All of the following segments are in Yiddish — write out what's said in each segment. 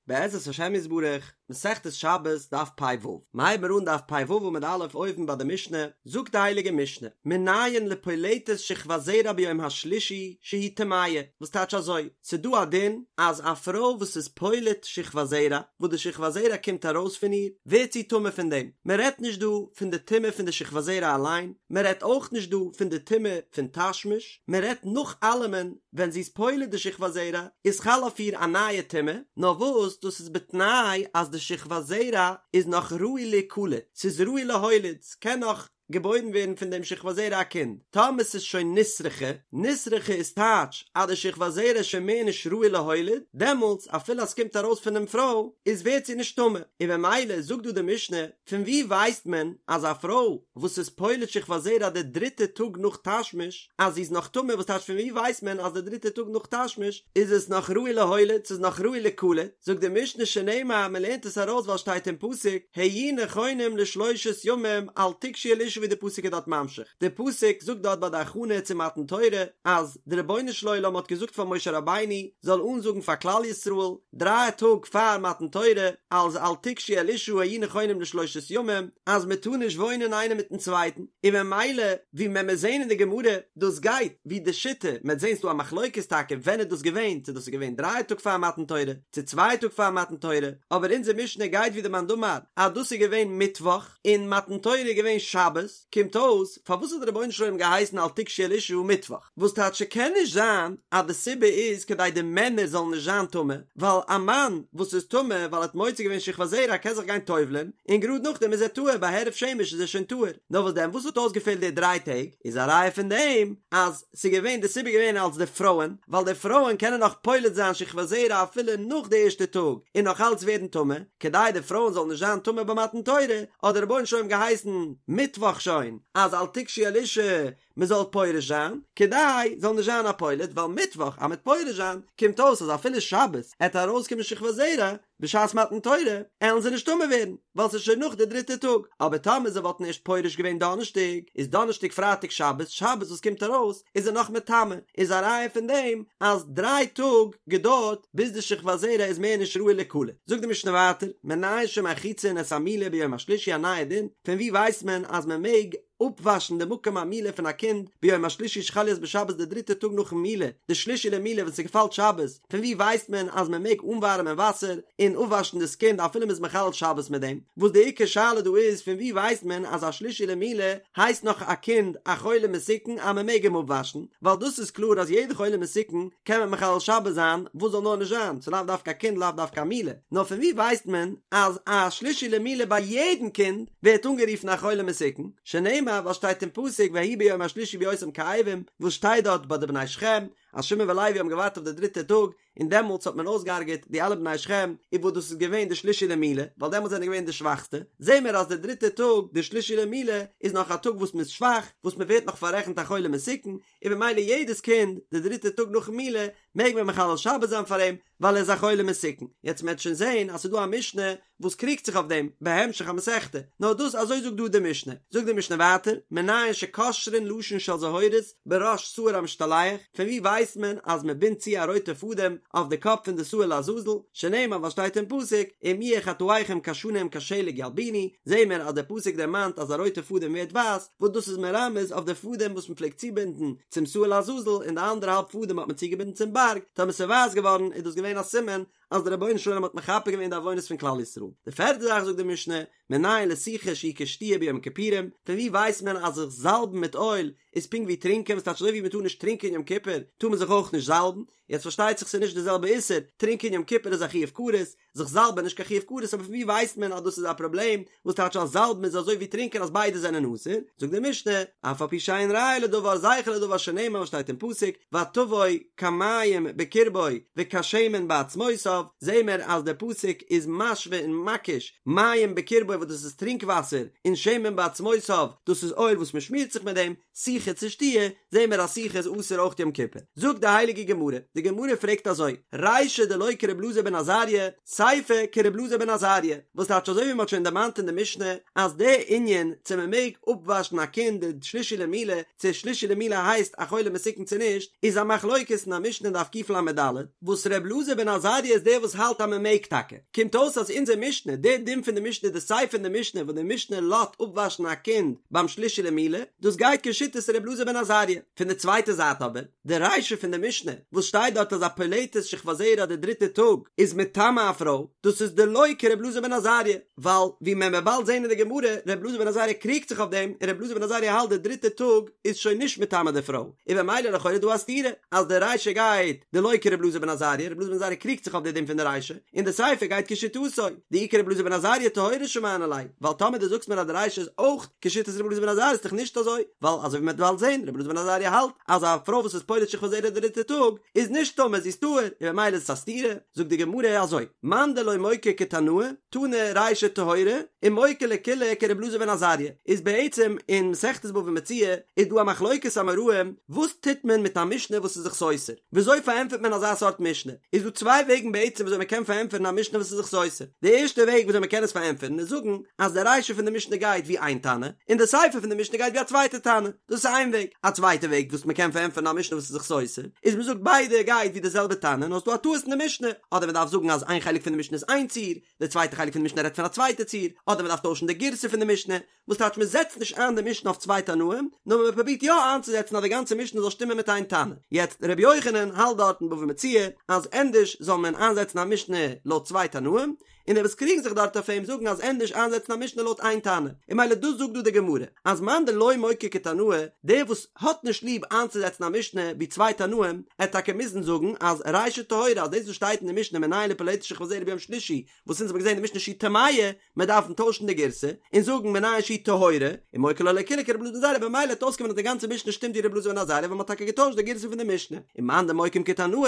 בעזרת השם יתברך, מסכת שבת, דף פ"ו. מ'הייבן מיר אן דף פ"ו עמוד א' אויבן ביי די משנה, זאגט די הייליגע משנה, מנין לפולטת שכבת זרע ביום השלישי שהיא טמאה, וואס טייטש אזוי, ס'דא א דין אז א פרוי וואס איז פולט שכבת זרע, וואס די שכבת זרע קומט ארויס פון איר, ווערט זי טמא פון דעם. מ'רעדט נישט דא פון די טומאה פון די שכבת זרע אליין, מ'רעדט אויך נישט דא פון די טומאה פון תשמיש, מ'רעדט נאך אלעמען ווען זי איז פולט די שכבת זרע איז חל אויף איר א נייע טומאה, נאר וואס דאס איז בתנאי אז די שכבת זרע איז נאך ראוי להיקלט, ס'איז ראוי להוליד, ס'קען נאך געבוירן ווערן פון דעם שכבת זרע א קינד, טאמער ס'איז שוין נסרחה, נסרחה איז טייטש אז די שכבת זרע איז שוין מער נישט ראוי להוליד, דעמאלטס אפילו אז ס'קומט ארויס פונעם פרוי איז ווערט זי נישט טמא, און במילא זאגט דא די משנה, פון וואו ווייסט מען אז א פרוי וואס איז פולט שכבת זרע די דריטע טאג נאך תשמיש אז זי איז נאך טמא וואס טייטש פון וואו ווייסט מען אז די דריטע טאג נאך תשמיש איז עס נאך ראוי להוליד ס'איז נאך ראוי ליקלט זאגט די משנה שנאמר מען לערנט עס ארויס ווייל שטייט אין פסוק היו נכונים לשלושת ימים אל תגשו אל אשה ווי די פסוק איז דארט ממשיך די פסוק זאגט דארט ביי די הכנה צו מתן תורה אז די רבונו של עולם האט געזאגט פאר משה רבינו זאל אנזאגן פאר כלל ישראל דריי טאג פאר מתן תורה, אז אל תגשו אל אשה היו נכונים לשלושת ימים, אז מען טאר נישט וואוינען איינער מיטן צווייטן, און ממילא ווי מען מיר זעהן אין די גמרא, דאס גייט ווי די שיטה, מען וועט זעהן ס'דא א מחלוקת טאקע ווען איז דאס געווען, צו דאס איז געווען דריי טאג פאר מתן תורה, צו צוויי טאג פאר מתן תורה, אבער אונזער משנה גייט ווי די מאן דאמר אז דאס איז געווען מיטוואך, און מתן תורה איז געווען שבת, קומט אויס, פארוואס האט דער רבונו של עולם געהייסן אל תגשו אל אשה מיטוואך? וואס טייטש ס'קען נישט זיין אז די סיבה איז כדי די מענער זאלן נישט זיין טמא, ווייל א מאן וואס איזטמא ווייל ער האט מוציא געווען שכבת זרע קען זיך גיין טובל'ען און גראד נאכדעם איז ער טהור ביי הערב שמש איז ער שוין טהור, נאר וואס דען וואס האט אויסגעפעלט די דריי טעג איז א ראיה פון דעם אז ס'איז געווען די סיבה געווען אלס די פרויען ווייל די פרויען קענען נאך פולט זיין שכבת זרע אפילו נאך די ערשטע טאג און נאך אלץ ווערן טמא, כדי די פרויען זאלן נישט זיין טמא ביי מתן תורה האט דער רבונו של עולם געהייסן מיטוואך שוין אז אל תגשו אל אשה מען זאל פורש זיין, כדי זאל נישט זיין א פולט, ווייל מיטוואך אז מ'עט פורש זיין, קומט אויס אז אפילו שבת עט ארויסקומען שכבת זרע בשעת מתן תורה, עלן זיי נישט טמא ווערן, ווייל ס'איז שוין נאך די דריטע טאג, אבער טאמער זיי וואלטן ערשט פורש געווען דאנערשטאג, איז דאנערשטאג פרייטאג שבת, שבת וואס קומט ארויס איז ער נאך מטמא, איז א ראיה פון דעם אז דריי טאג געדויערט ביז די שכבת זרע איז מער נישט ראוי ליקלט. זאגט די משנה ווייטער, מנין שמרחיצין את המילה ביום השלישי א נייע דין, פון וואו ווייסט מען אז מען מעג אפוואשן די מקום המילה פון א קינד ביום השלישי שחל להיות בשבת די דריטע טאג נאכן מילה, די שלישי למילה ווען ס'געפאלט שבת, פון וואו ווייסט מען אז מען מעג אנווארעמען וואסער און אפוואשן דאס קינד אפילו מ'איז מחלל שבת מיט דעם? וואס די עיקר שאלה דא איז פון וואו ווייסט מען אז א שלישי למילה הייסט נאך א קינד א חולה מסוכן אז מען מעג אים אפוואשן, ווייל דאס איז קלאר אז יעדע חולה מסוכן קען מען מחלל שבת זיין וואס זאל נאר נישט זיין, ס'לאו דווקא א קינד לאו דווקא א מילה, נאר פון וואו ווייסט מען אז א שלישי למילה ביי יעדן קינד ווערט אנגערופן א חולה מסוכן, שנאמר וואס שטייט אין פסוק ויהי ביום השלישי בהיותם כאבים, וואס שטייט דארט ביי די בני שכם, אז שמעון ולוי האבן געווארט אויף די דריטע טאג, און דעמאלטס האט מען אויסגעהארגעט די אלע בני שכם, און וואס דאס איז געווען די שלישי למילה, ווייל דעמאלטס זענען געווען די שוואכסטע, זעהן מיר אז די דריטע טאג, די שלישי למילה, איז נאך א טאג וואס מען איז שוואך, וואס מען ווערט נאך פאררעכנט א חולה מסוכן, און במילא יעדעס קינד די דריטע טאג נאכן מילה מעג מען מחלל שבת זיין פאר אים, ווייל ער איז א חולה מסוכן. יעצט מען וועט שוין זעהן אז ס'איז דא א משנה וואס קריגט זיך אויף דעם בהמשך המסכתא, נאר דאס אזוי זאגט דא די משנה. זאגט די משנה ווייטער, מנין שקושרין לשון של זהורית בראש שעיר המשתלח, פון וואו ווייסט מען אז מען בינדט צו א רויטע פאדעם אויף די קאפ פון די שעיר לעזאזל, שנאמר וואס שטייט אין פסוק, אם יהיו חטאיכם כשנים כשלג ילבינו, זעהן מיר אז דער פסוק דערמאנט אז א רויטע פאדעם ווערט ווייס, וואס דאס איז מרמז אויף די פאדעם וואס מען פלעגט צובינדן צום שעיר לעזאזל און די אנדערע האלב פאדעם האט מען צוגעבינדן צום בארג, טאמער ס'איז ווייס געווארן איז דאס געווען א סימן אז דער רבונו של עולם האט מכפר געווען די עוונות פון כלל ישראל. די פערטע זאך זאגט די משנה, מנין לסיכה שהיא כשתיה ביום כיפורים, פון וואו ווייסט מען אז זיך זאלבן מיט אויל איז פונקט ווי טרינקען, וואס טייטש אזוי ווי מען טאר נישט טרינקען יום כיפור טאר מען זיך אויך נישט זאלבן, יעצט פארשטייט זיך ס'איז נישט די זעלבע איסור, טרינקען יום כיפור איז א חיוב כרת, זיך זאלבען נישט קיין חיוב כרת אבער פון ווי ווייסט מען אז דאס איז א פראבלעם וואס טייטש אז זאלבן איז אזוי ווי טרינקען אז ביידע זענען אסור זאגט די משנה אף על פי שאין ראיה לדבר זכר לדבר שנאמר וואס שטייט אין פסוק ותבא כמים בקרבו וכשמן בעצמותיו זעהן מיר אז דער פסוק איז משווה און מקיש מים בקרבו וואס דאס איז טרינק וואסער און שמן בעצמותיו דאס איז אויל וואס מען שמירט זיך מיט דעם סיכה צו שתיה זעהן מיר אז סיכה איז אסור אויך יום כיפור זאגט די הייליגע גמרא די. די גמרא פרעגט אזוי, רישא דלא כר' אלעזר בן עזריה, סיפא כר' אלעזר בן עזריה, וואס טייטש אזוי ווי מען האט שוין דערמאנט אין די משנה אז די ענין צו מען מעג אפוואשן א קינד די שלישי למילה, צו שלישי למילה הייסט א חולה מסוכן צו נישט, איז א מחלוקת אין א משנה אין דף קל"ד, וואס ר' אלעזר בן עזריה איז דער וואס האלט אז מען מעג טאקע. קומט אויס אז אונזער משנה, די דין פון די משנה, די סיפא פון די משנה וואס די משנה לאזט אפוואשן א קינד ביים שלישי למילה, דאס גייט כשיטת ר' אלעזר בן עזריה. פון די צווייטע זייט אבער, די רישא פון די משנה, וואס שטייט דארט אז א פולטת שכבת זרע די דריטע טאג איז מטמא א פרוי, דאס איז דלא כר' אלעזר בן עזריה, ווייל ווי מען וועט באלד זען אין די גמרא, ר' אלעזר בן עזריה קריגט זיך אויף דעם, און ר' אלעזר בן עזריה האלט די דריטע טאג איז שוין נישט מטמא די פרוי, און במילא לכאורה דא א סתירה, אז די רישא גייט דלא כר' אלעזר בן עזריה, ר' אלעזר בן עזריה קריגט זיך אויף די דין פון די רישא, און די סיפא גייט כשיטתו, דאי כר' אלעזר בן עזריה טהורה שמענא ליה, ווייל טאמער דו זאגסט מיר אז די רישא איז אויך כשיטת ר' אלעזר בן עזריה איז דאך נישט אזוי, ווייל אזוי ווי מען וועט באלד זען, ר' אלעזר בן עזריה האלט אז א פרוי וואס איז פולט שכבת זרע די דריטע טאג איז נישט טמא זי איז טהור, און במילא איז עס א סתירה, זאגט די גמרא אזוי, מאן דלא מוקי כתנאי, תנא רישא טהורה, ומוקי לקולא כר' אלעזר בן עזריה, איז בעצם אין מסכת בבא מציעא איז דא א מחלוקת אמוראים וואס טוט מען מיט א משנה וואס איז זיך סותר, וויאזוי פארענטפערט מען אזא סארט משנה, איז דא צוויי וועגן בעצם וויאזוי מען קען פארענטפערן א משנה וואס איז זיך סותר, די ערשטע וועג וויאזוי מען קען עס פארענטפערן איז זאגן אז די רישא פון די משנה גייט ווי איין תנא, און די סיפא פון די משנה גייט ווי א צווייטע תנא, דאס איז איין וועג, א צווייטע וועג וואס מען קען פארענטפערן א משנה וואס איז זיך סותר, איז מען זאגט ביידע גייט ווי די זעלבע תנא נאר ס'איז דא א טעות אין די משנה, אדער מען דארף זאגן אז איין חלק פון די משנה איז איין ציור, די צווייטע חלק פון די משנה רעדט פון א צווייטע ציור, אדער מען דארף טוישן די גירסא פון די משנה, וואס טייטש מען זעצט נישט איין די משנה אויף צוויי תנאים, נאר מען פרובירט יא איינצוזעצן אז די גאנצע משנה זאל שטימען מיט איין תנא. יעצט ר' יוחנן האלט דארט אין בבא מציעא אז ענדערש זאל מען איינזעצן א משנה לויט צוויי תנאים, און די וואס קריגן זיך דארט אויף אים זאגן אז ענדערש איינזעצן א משנה לויט איין תנא, און ממילא דאס זאגט דא די גמרא, אז מאן דלא מוקי כתנאי, דער וואס האט נישט ליב איינצוזעצן א משנה ווי צוויי תנאים, עט טאקע מוזן זאגן אז רישא טהורה אז דאס וואס שטייט אין די משנה מנין לפולטת שכבת זרע ביום שלישי, וואס אונז האבן געזען אין די משנה שהיא טמאה, מיר דארפן טוישן די גירסא און זאגן מנין שהיא טהורה, ומוקי לה לקולא כרבי אלעזר בן עזריה במילא וועט אויסקומען אז די גאנצע משנה שטימט ווי רבי אלעזר בן עזריה ווייל מ'האט טאקע געטוישט די גירסא פון די משנה, ומאן דמוקים כתנאי,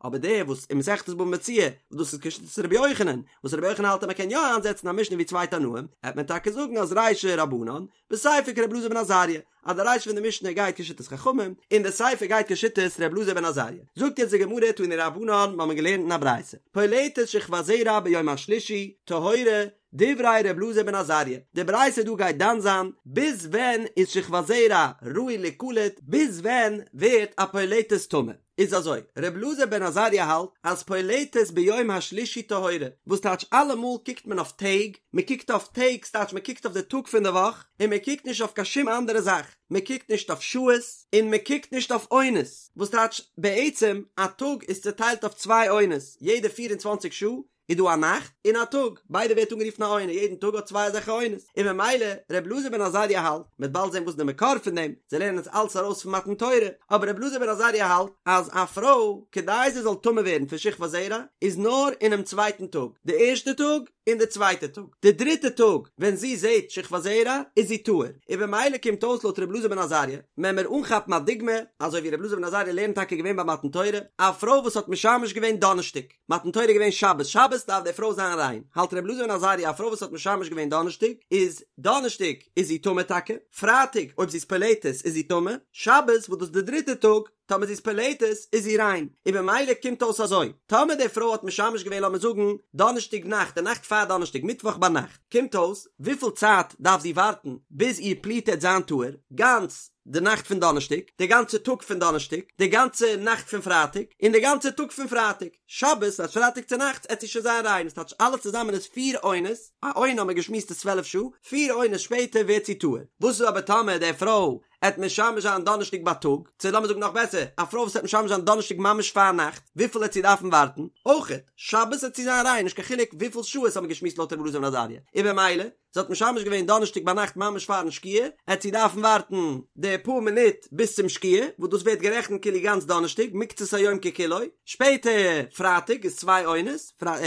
אבער דער וואס אין מסכת בבא מציעא וואס דאס איז כשיטת רבי יוחנן, וואס רבי יוחנן האלט אז מ'קען יא איינזעצן א משנה ווי צוויי תנאים, העט מען טאקע זאגן אז רישא רבנן, וסיפא כרבי אלעזר בן עזריה, אז די רישא פון די משנה גייט כשיטת חכמים, און די סיפא גייט כשיטת רבי אלעזר בן עזריה. זאגט יעצט די גמרא תנו רבנן, מ'האמיר געלערנט אין א ברייתא, פולטת שכבת זרע ביום השלישי, טהורה, דברי ר' אלעזר בן עזריה, די ברייתא דא גייט דן זיין ביז ווען איז שכבת זרע ראוי ליקלט, ביז ווען ווערט א פולטת טמא. איז אזוי, ר' אלעזר בן עזריה האלט אז פולטת ביום השלישי טהורה, וואס טייטש אלעמאל קוקט מען אויף טעג, מען קוקט אויף טעג ס'טייטש מען קוקט אויף די טאג פון די וואך, און מען קוקט נישט אויף קיין שום אנדערע זאך, מען קוקט נישט אויף שעות, און מען קוקט נישט אויף עונות, וואס טייטש בעצם א טאג איז צוטיילט אויף צוויי עונות, יעדע פיר און צוואנציג שעה איז דא א נאכט און א טאג, ביידע ווערט אנגערופן א עונה, יעדן טאג האט צוויי אזעלכע עונות, און ממילא ר' אלעזר בן עזריה האלט, מ'וועט באלד זען וואס איז די מקור פון דעם, זיי לערנען עס אלץ ארויס פון מתן תורה, אבער ר' אלעזר בן עזריה האלט אז א פרוי כדי זי זאל טמא ווערן פון שכבת זרע איז נאר אינעם צווייטן טאג, די ערשטע טאג און די צווייטע טאג, די דריטע טאג ווען זי זעט שכבת זרע איז זי טהור, און במילא קומט אויס לויט ר' אלעזר בן עזריה, וועלן מיר אנכאפן א דוגמא, אזוי ווי ר' אלעזר בן עזריה לערנט טאקע געווען ביי מתן תורה, א פרוי וואס האט משמש געווען דאנערשטאג, מתן תורה איז געווען שבת, שבת דארף די פרוי זיין ריין, האלט ר' אלעזר בן עזריה א פרוי וואס האט משמש געווען דאנערשטאג, איז דאנערשטאג איז זי טמא טאקע, פרייטאג אויב זי איז פולטת איז זי טמא, שבת וואס דאס איז די דריטע טאג, טאמער זי איז פולטת איז זי ריין, און במילא קומט אויס אזוי, טאמער די פרוי האט משמש געווען לאמיר זאגן דאנערשטאג נאכט, די נאכט פאר דאנערשטאג מיטוואך ביינאכט, קומט אויס וויפיל צייט דארף זי ווארטן ביז איר פליטה עט זיין טהור, גאנץ די נאכט פון דאנערשטאג, די גאנצע טאג פון דאנערשטאג, די גאנצע נאכט פון פרייטאג, און די גאנצע טאג פון פרייטאג. שבת, אז פרייטאג צו נאכטס עט זי שוין זיין ריין, עס טייטש אלעס צוזאמען איז פיר עונות, א עונה האט מען געשמועסט איז צוועלף שעה, פיר עונות שפעטער ווערט זי טהור. וואס איז אבער טאמער די פרוי עט משמש זיין דאנערשטאג בייטאג, צו לאמיר זאגן נאך בעסער, א פרוי וואס עט משמש זיין דאנערשטאג ממש פארנאכט, וויפיל עט זי דארפן ווארטן? אויכעט, שבת עט זי זיין ריין, נישט קיין חילוק וויפיל שעות האט מען געשמועסט לויט רבי אלעזר בן עזריה, און במילא, זי האט משמש געווען דאנערשטאג ביינאכט ממש פארן שקיעה, עט זי דארפן ווארטן די פאר מינוט ביז צום שקיעה, וואס דאס ווערט גערעכנט כאילו גאנץ דאנערשטאג, מקצת היום ככולו, שפעטער פרייטאג איז צוויי עונות,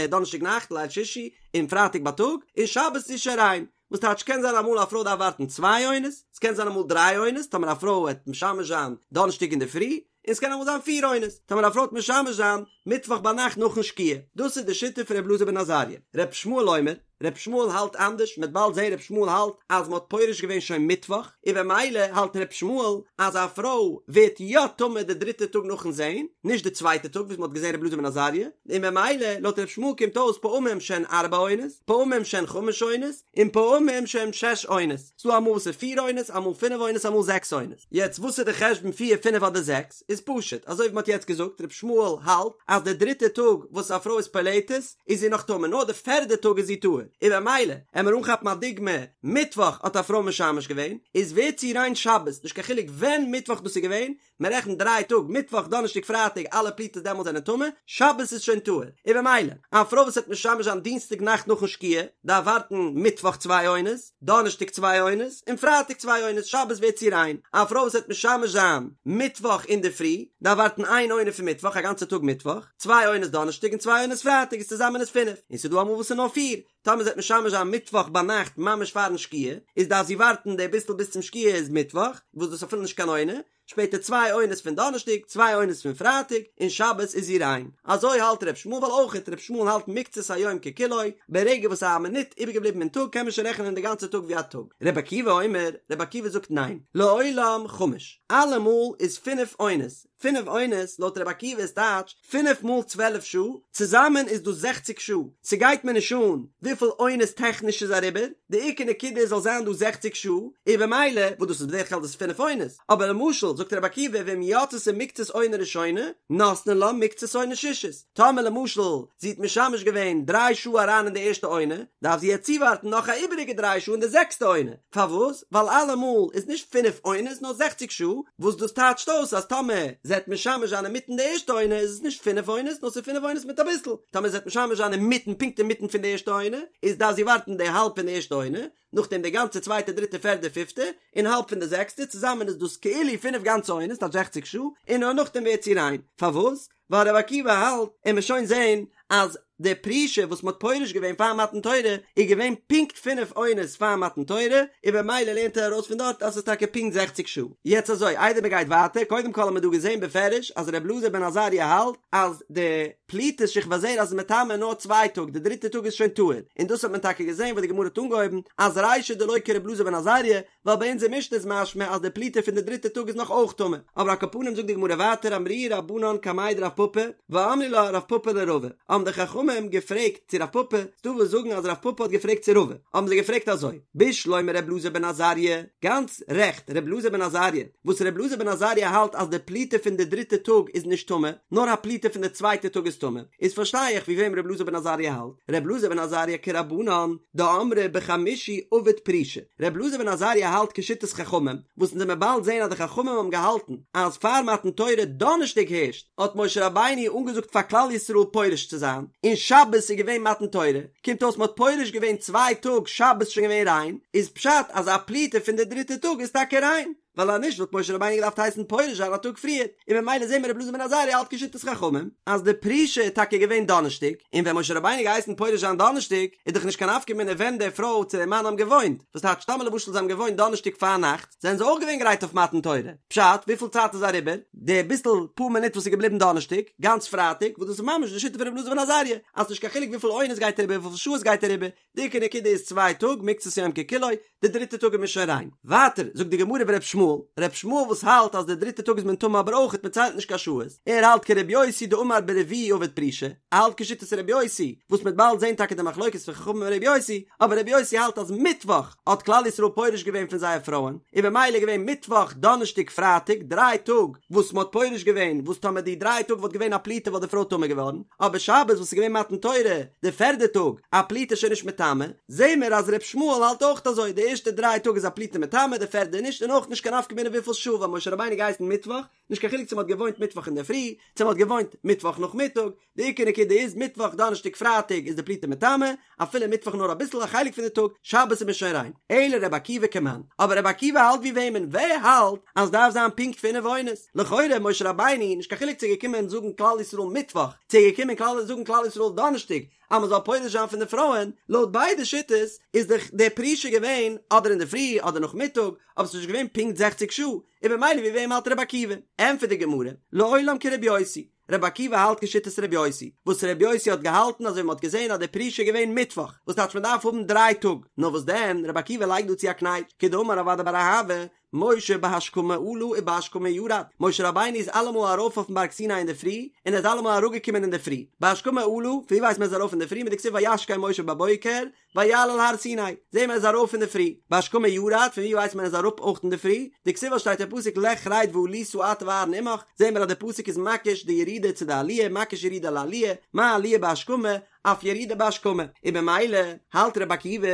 דאנערשטאג נאכט ליל שישי, און פרייטאג בייטאג, און שבת איז זי שוין ריין. וואס טייטש קען זיין אמאל א פרוי דארף ווארטן צוויי עונות, ס'קען זיין אמאל דריי עונות, טאמער א פרוי עט משמש זיין דאנערשטאג אינדערפרי, און ס'קען אמאל זיין פיר עונות, טאמער א פרוי עט משמש זיין מיטוואך ביינאכט נאכן שקיעה. דאס איז די שיטה פון ר' אלעזר בן עזריה. ר' ישמעאל אומר. ר' ישמעאל האלט אנדערש, מ'וועט באלד זען ר' ישמעאל האלט אז מ'האט פורש געווען שוין מיטוואך, און במילא האלט ר' ישמעאל אז א פרוי ווערט יא טמא די דריטע טאג נאכן זען, נישט די צווייטע טאג וואס מ'האט געזען ר' אלעזר בן עזריה, און במילא לויט ר' ישמעאל קומט אויס פעמים שהן ארבע עונות, פעמים שהן חמש עונות, און פעמים שהן שש עונות. ס'דא אמאל וואס איז פיר עונות, אמאל פינף עונות, אמאל זעקס עונות. יעצט וואס איז די חשבון פיר, פינף אדער זעקס? איז פשוט, אזוי ווי מ'האט יעצט געזאגט, ר' ישמעאל האלט אז די דריטע טאג וואס א פרוי איז פולטת איז זי נאך טמא, נאר די פערדע טאג איז זי טהור, און במילא, עמער אנכאפן א דוגמא, מיטוואך האט א פרוי משמש געווען, איז ווערט זי ריין שבת, נישט קיין חילוק ווען מיטוואך דאס איז געווען, מען רעכנט דריי טאג, מיטוואך, דאנערשטאג, פרייטאג, אלע פליטות דעמאלט זענען טמא, שבת איז שוין טהור, און במילא, א פרוי וואס וועט משמש זיין דינסטאג נאכט נאכן שקיעה, דארף ווארטן מיטוואך צוויי עונות, דאנערשטאג צוויי עונות, און פרייטאג צוויי עונות, שבת ווערט זי ריין. א פרוי וואס וועט משמש זיין מיטוואך אינדערפרי, דארף ווארטן איין עונה פון מיטוואך, א גאנצע טאג מיטוואך, צוויי עונות דאנערשטאג און צוויי עונות פרייטאג איז צוזאמען איז פינף, און ס'איז דא אמאל וואס איז נאר פיר, טאמער זי וועט משמש זיין מיטוואך ביינאכט ממש פארן שקיעה, איז דארף זי ווארטן די ביסל ביז צום שקיעה איז מיטוואך, וואס דאס איז אפילו נישט קיין עונה, שפעטער צוויי עונות פון דאנערשטאג, צוויי עונות פון פרייטאג, און שבת איז זי ריין. אזוי האלט ר' ישמעאל ווייל אויכעט ר' ישמעאל האלט מקצת היום ככולו, ברגע וואס א מינוט איבערגעבליבן אין טאג קען מען שוין רעכענען די גאנצע טאג ווי א טאג. ר' עקיבא אומר, ר' עקיבא זאגט ניין, לעולם חמש, אלעמאל איז פינף עונות, פינף עונות לויט רבי עקיבא איז טייטש פינף מאל 12 שעה, צוזאמען איז דאס זעכציג שעה, ס'גייט מיר נישט אן וויפיל עונות טעכניש איז אריבער, די עיקר נקודה איז זאל זיין דא זעכציג שעה, און במילא, וואס דאס איז בדרך כלל דאס פינף עונות, אבער למשל זאגט רבי עקיבא ואם יצתה מקצת עונה ראשונה, נותנין לה מקצת עונה שישית, טאמער למשל זי האט משמש געווען דריי שעה אריין אין די ערשטע עונה, דארף זי יעצט צואווארטן נאך א איבעריגע דריי שעה אין די זעקסטע עונה. פארוואס? ווייל אלעמאל איז נישט פינף עונות נאר זעכציג שעה, וואס דאס טייטשט אויס אז טאמער זי וועט משמש זיין אינמיטן די ערשטע עונה איז עס נישט פינף עונות נאר ס'איז פינף עונות מיט אביסל, טאמער זי וועט משמש זיין אינמיטן פונקט אינמיטן פון די ערשטע עונה איז דארף זי ווארטן די האלב פון די ערשטע עונה, נאכדעם די גאנצע צווייטע דריטע פערדע פיפטע, און האלב פון די זעקסטע, צוזאמען איז דאס כאילו פינף גאנצע עונות טייטש זעכציג שעה, און נאר נאכדעם ווערט זי ריין. פארוואס? ווייל רבי עקיבא האלט, און מ'עט שוין זעהן אז די פרישה וואס מ'האט פורש געווען פאר מתן תורה איז געווען פונקט פינף עונות פאר מתן תורה, און במילא לערנט ער ארויס פון דארט אז ס'איז טאקע פונקט זעכציג שעה. יעצט אזוי, איידער מ'גייט ווייטער, קודם כל האבן מיר דא געזעהן בפירוש אז רבי אלעזר בן עזריה האלט אז די פליטת שכבת זרע איז מטמא נאר צוויי טאג, די דריטע טאג איז שוין טהור, און דאס האט מען טאקע געזעהן וואס די גמרא האט אנגעהויבן אז רישא דלא כרבי אלעזר בן עזריה, ווייל ביי אונזער משנה איז משמע אז די פליטה פון די דריטע טאג איז נאך אויך טמא, אבער על כל פנים זאגט די גמרא ווייטער אמרוה רבנן קמיה דרב פפא, ואמרי לה רב פפא לרבא, האבן די חכמים געפרעגט צו רב פפא, ס'דא וואס זאגן אז רב פפא האט געפרעגט צו רבא, האבן זיי געפרעגט אזוי, בשלמא ר' אלעזר בן עזריה, גאנץ רעכט ר' אלעזר בן עזריה, וואס ר' אלעזר בן עזריה האלט אז די פליטה פון די דריטע טאג איז נישט טמא, נאר א פליטה פון די צווייטע טאג איז טמא, איז פארשטיי איך ווי וועם ר' אלעזר בן עזריה האלט, ר' אלעזר בן עזריה כרבנן, דאמרי בחמישי עביד פרישה, ר' אלעזר בן עזריה האלט כשיטת חכמים, וואס אונז עמיר באלד זעהן אז די חכמים האבן געהאלטן אז פאר מתן תורה דאנערשטאג הערשט האט משה רבינו אנגעזאגט פאר כלל ישראל פורש צו זיין, און שבת איז געווען מתן תורה, קומט אויס מ'האט פורש געווען צוויי טאג שבת איז שוין געווען ריין, איז פשט אז א פליטה פון די דריטע טאג איז טאקע ריין. ווייל אז נישט וואלט משה רבינו געדארפט הייסן פורש זיין א טאג פריער, און ממילא זעהן מיר רבי אלעזר בן עזריה האלט כשיטת חכמים אז די פרישה איז טאקע געווען דאנערשטאג, און ווען משה רבינו געהייסן פורש זיין דאנערשטאג איז דאך נישט קיין נפקא מינה ווען די פרוי צו די מאן האבן געוואוינט, וואס טייטש טאמער למשל זיי האבן געוואוינט דאנערשטאג פארנאכטס זענען זיי אויך געווען גרייט אויף מתן תורה, פשט וויפיל צייט איז אריבער? די ביסל פאר מינוט וואס איז געבליבן דאנערשטאג, גאנץ פרייטאג, וואס דאס איז ממש די שיטה פון רבי אלעזר בן עזריה, אז נישט קיין חילוק וויפיל עונות גייט אריבער וויפיל שעות גייט אריבער, די עיקר נקודה איז צוויי טאג, מקצת יום ככולו, די דריטע טאג איז מען שוין ריין. ווייטער זאגט די גמרא ור' ישמעאל, ר' ישמעאל וואס האלט אז די דריטע טאג איז מען טמא אבער אויכעט מען ציילט נישט קיין שעות, ער האלט כר' יוסי דאמר ברביעי עביד פרישה, ער האלט כשיטת ר' יוסי, וואס מ'עט באלד זעהן טאקע די מחלוקת פון חכמים און ר' יוסי, אבער ר' יוסי האלט אז מיטוואך האט כלל ישראל פורש געווען פון זייער פרויען, און במילא איז געווען מיטוואך, דאנערשטאג, פרייטאג, דריי טאג וואס מ'האט פורש געווען, וואס טאמער די דריי טאג וואלט געווען א פליטה וואלט די פרוי טמא געווארן, אבער שבת וואס איז געווען מתן תורה, די פערדע טאג, א פליטה איז שוין נישט מטמא, זעהן מיר אז ר' ישמעאל האלט אויך אזוי, די ערשטע דריי טאג איז א פליטה מטמא, די פערדע נישט, און אויך נישט קיין נפקא מינה וויפיל שעה, ווייל משה רבינו געהייסן מיטוואך, נישט קיין חילוק צו מ'האט געוואוינט מיטוואך אינדערפרי, צו מ'האט געוואוינט מיטוואך נאכמיטאג, די עיקר נקודה איז מיטוואך דאנערשטאג פרייטאג איז די פליטה מטמא, אפילו מיטוואך נאר אביסל א חלק פון די טאג, שבת איז מען שוין ריין. אלא רבי עקיבא כמאן, אבער רבי עקיבא האלט ווי וועמען? ווער האלט אז דארף זיין פונקט פינף עונות? לכאורה משה רבינו, נישט קיין חילוק צו ער געקומען זאגן כלל ישראל מיטוואך, צו ער געקומען כלל זאגן כלל ישראל דאנערשטאג, אז מען זאל פורש זיין פון די פרויען, לויט ביידע שיטות איז דאך די פרישה געווען אדער אינדערפרי אדער נאכמיטאג, אבער ס'איז נישט געווען פונקט זעכציג שעה, און במילא ווי וועם האלט רבי עקיבא? ענטפערט די גמרא, לעולם כרבי יוסי. רבי עקיבא האלט כשיטת רבי יוסי, וואס רבי יוסי האט געהאלטן אזוי ווי מען האט געזען אז די פרישה איז געווען מיטוואך, וואס טייטש מען דארף האבן דריי טאג, נאר וואס דען, רבי עקיבא לייגט דא צו א קנייטש, כדאמר רב אדא בר אהבה, משה בהשכמה עלה ובהשכמה ירד, משה רבינו איז אלעמאל ארויף אויפן בארג סיני אינדערפרי, און ער איז אלעמאל אראפגעקומען אינדערפרי, בהשכמה עלה, פון ווי ווייסט מען ער איז ארויף אינדערפרי, מדכתיב וישכם משה בבוקר, ויעל אל הר סיני, זעהן מיר ער איז ארויף אינדערפרי, בהשכמה ירד, פון ווי ווייסט מען ער איז אראפ אויך אינדערפרי, דכתיב וואס שטייט אין פסוק לך רד ועלית אתה ואהרן עמך, זעהן מיר אז די פסוק איז מקיש די ירידה צו די עליה, מקיש ירידה לעליה, מה עליה בהשכמה, אף ירידה בהשכמה, און במילא האלט רבי עקיבא